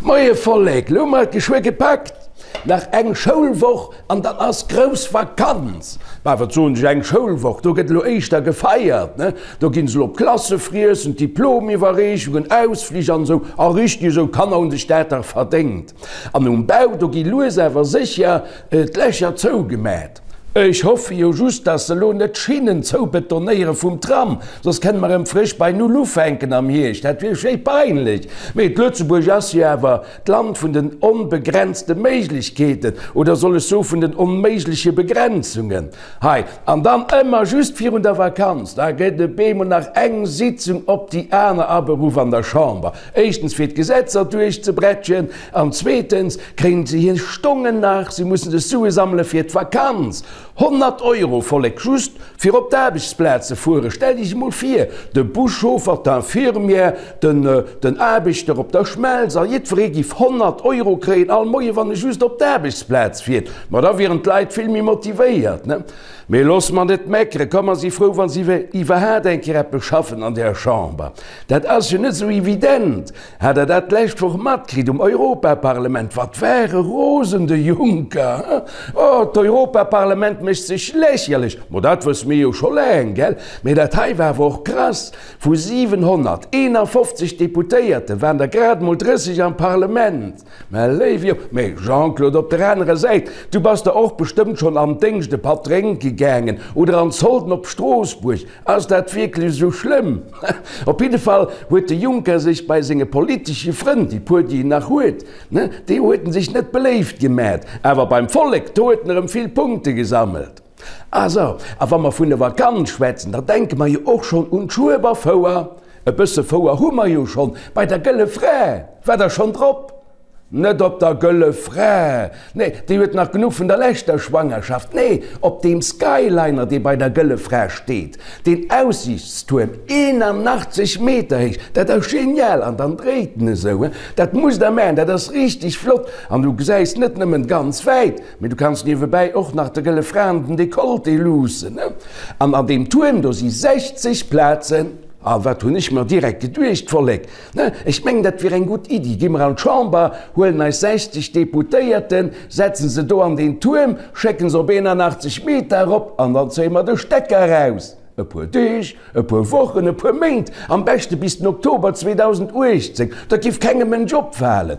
Moie Vollek, lo hu mer et geschwë gepackt, nach eng Schoulwoch an dann ass grouss Vakanz. Bah, wat soen ech, eng Schoulwoch, do gëtt elo éischter gefeiert, ne? Do ginn se elo op Klassefriessen, Diplomiwwerreechungen, Ausflich an esou. A richteg esou, d'Kanner hunn sech dat dach verdéngt. An um Bau, do gi lues awer sécher d'Lächer zougemat. Ech hoffe jo just, dass se elo net d'Schinnen zoubetonéiere vum Tram, soss kënne mer erëm frësch bei Null ufänken am Hierscht. Dat wier schéi peinlech. Mee d'Lëtzebuerg ass jo awer d'Land vun den onbegrenzte Méiglechkeeten, oder soll ech soe vun den onméigleche Begrenzungen. Hei, an dann ëmmer just virun der Vakanz, da gëtt e bemol nach eng Sitzung op déi aner aberuff an der Chamber. Éischtens fir d'Gesetzer duerchzebretschen an zweetens kréien se hir Stongen nach, se mussen sech Sue sammele fir d'Vakanz. 100 Euro, Vollek, just fir op d'Aarbechtsplaz ze fueren. Stellt Iech emol vir, de Buschauffer, d'Infirmière, den den Aarbechter op der Schmelz a jiddweree giff 100 Euro kréien all Moie wann e just op d'Aarbechtsplaz fiert. Ma da wieren d'Leit vill méi motivéiert, ne? Mee looss mer net meckeren, komm mer si frou wa si iwwerhaat eng Kéier eppes schaffen an där Chamber. Dat ass jo net esou evident. Hat der dat d'lescht Woch matkritt um Europaparlement? Wat war e rosen, de Juncker, he? Oh, d'Europaparlement mécht sech lächerlech. Ma dat wësse mir jo scho laang, gell? Mee dat hei war awer och krass, Vu 751 Deputéierte waren der grad mol 30 am Parlement. Mä léif Jo, mee Jean-Claude, op der anerer Säit, du bass der och bestëmmt schonn am Déngscht e Patt drénke gaangen oder an d'Solden op Stroossbuerg. Ass dat wierklech esou schlëmm? Op jidde Fall huet de Juncker sech bei senge politesche Frënn, déi puer déi en nach huet, ne, déi huet en sech net beléift gemat, awer beim Vollek, do huet en erëm vill Punkte gesammelt. Ah sou, a wa mer vun der Vakanz schwätzen, da denke mer jo och schonn un d'Schueberfouer. E bësse Fouer hu mer jo schonn bei der Gëlle Fra. War der schonn drop? Net op der Gëlle Fra, nee, déi huet nach genuch vun der leschter Schwangerschaft, nee, op deem Skyliner, dee bei der Gëlle Fra steet, deen Aussiichtstuerm, 81 Meter héich, dat ass genial, an dann dréit en esou, dat musst der maachen, dat ass richteg flott, an du gesäis net nëmmen ganz wäit, mee du kanns niewebäi och nach der Gëlle Fra an den Dekolleté luussen, an an deem Tuerm do si 60 Plazen. A wat hunn ech mer direkt geduecht, Vollek, Ne, ech mengen, dat wier eng gutt Iddi. Gi mer an d'Chamber, huelen eis 60 Deputéierten, setzen se do an deen Tuerm, schécken se op 81 Meter erop an dann zéie mer de Stecker eraus. E puer Deeg, e puer Wochen, e puer Méint, am beschte bis den Oktober 2018. Dat giff kengem Mënsch opfalen.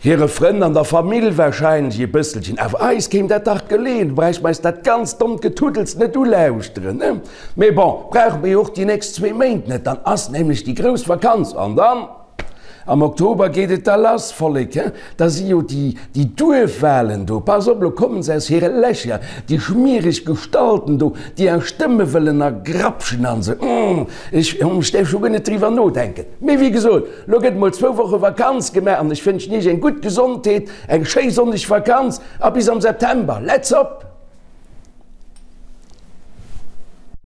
Hire Frënn an der Famill wahrscheinlech e bësselchen, awer eis kéim dat dach geleeën, do bräichte mer eis dat ganzt dommt Getuddels net ulauschteren, ne? Mee bon, brauche mer jo och déi nächst zwee Méint net, dann ass nämlech déi grouss Vakanz an dann am Oktober geet et da lass, Vollek, he? Da si jo déi, déi Duerfwahlen do, pass op, lo kommen se aus hire Lächer, déi schmiereg Gestalten do, déi eis Stëmme wëllen ergrapschen an esou, hm, ech, ech däerf scho guer net driwwer nodenken. Mee wéi gesot, Lo gëtt mol zwou Woche Vakanz gemaach an ech wënschen iech eng gutt Gesondheet, eng schéi sonneg Vakanz a bis am September. Let's op!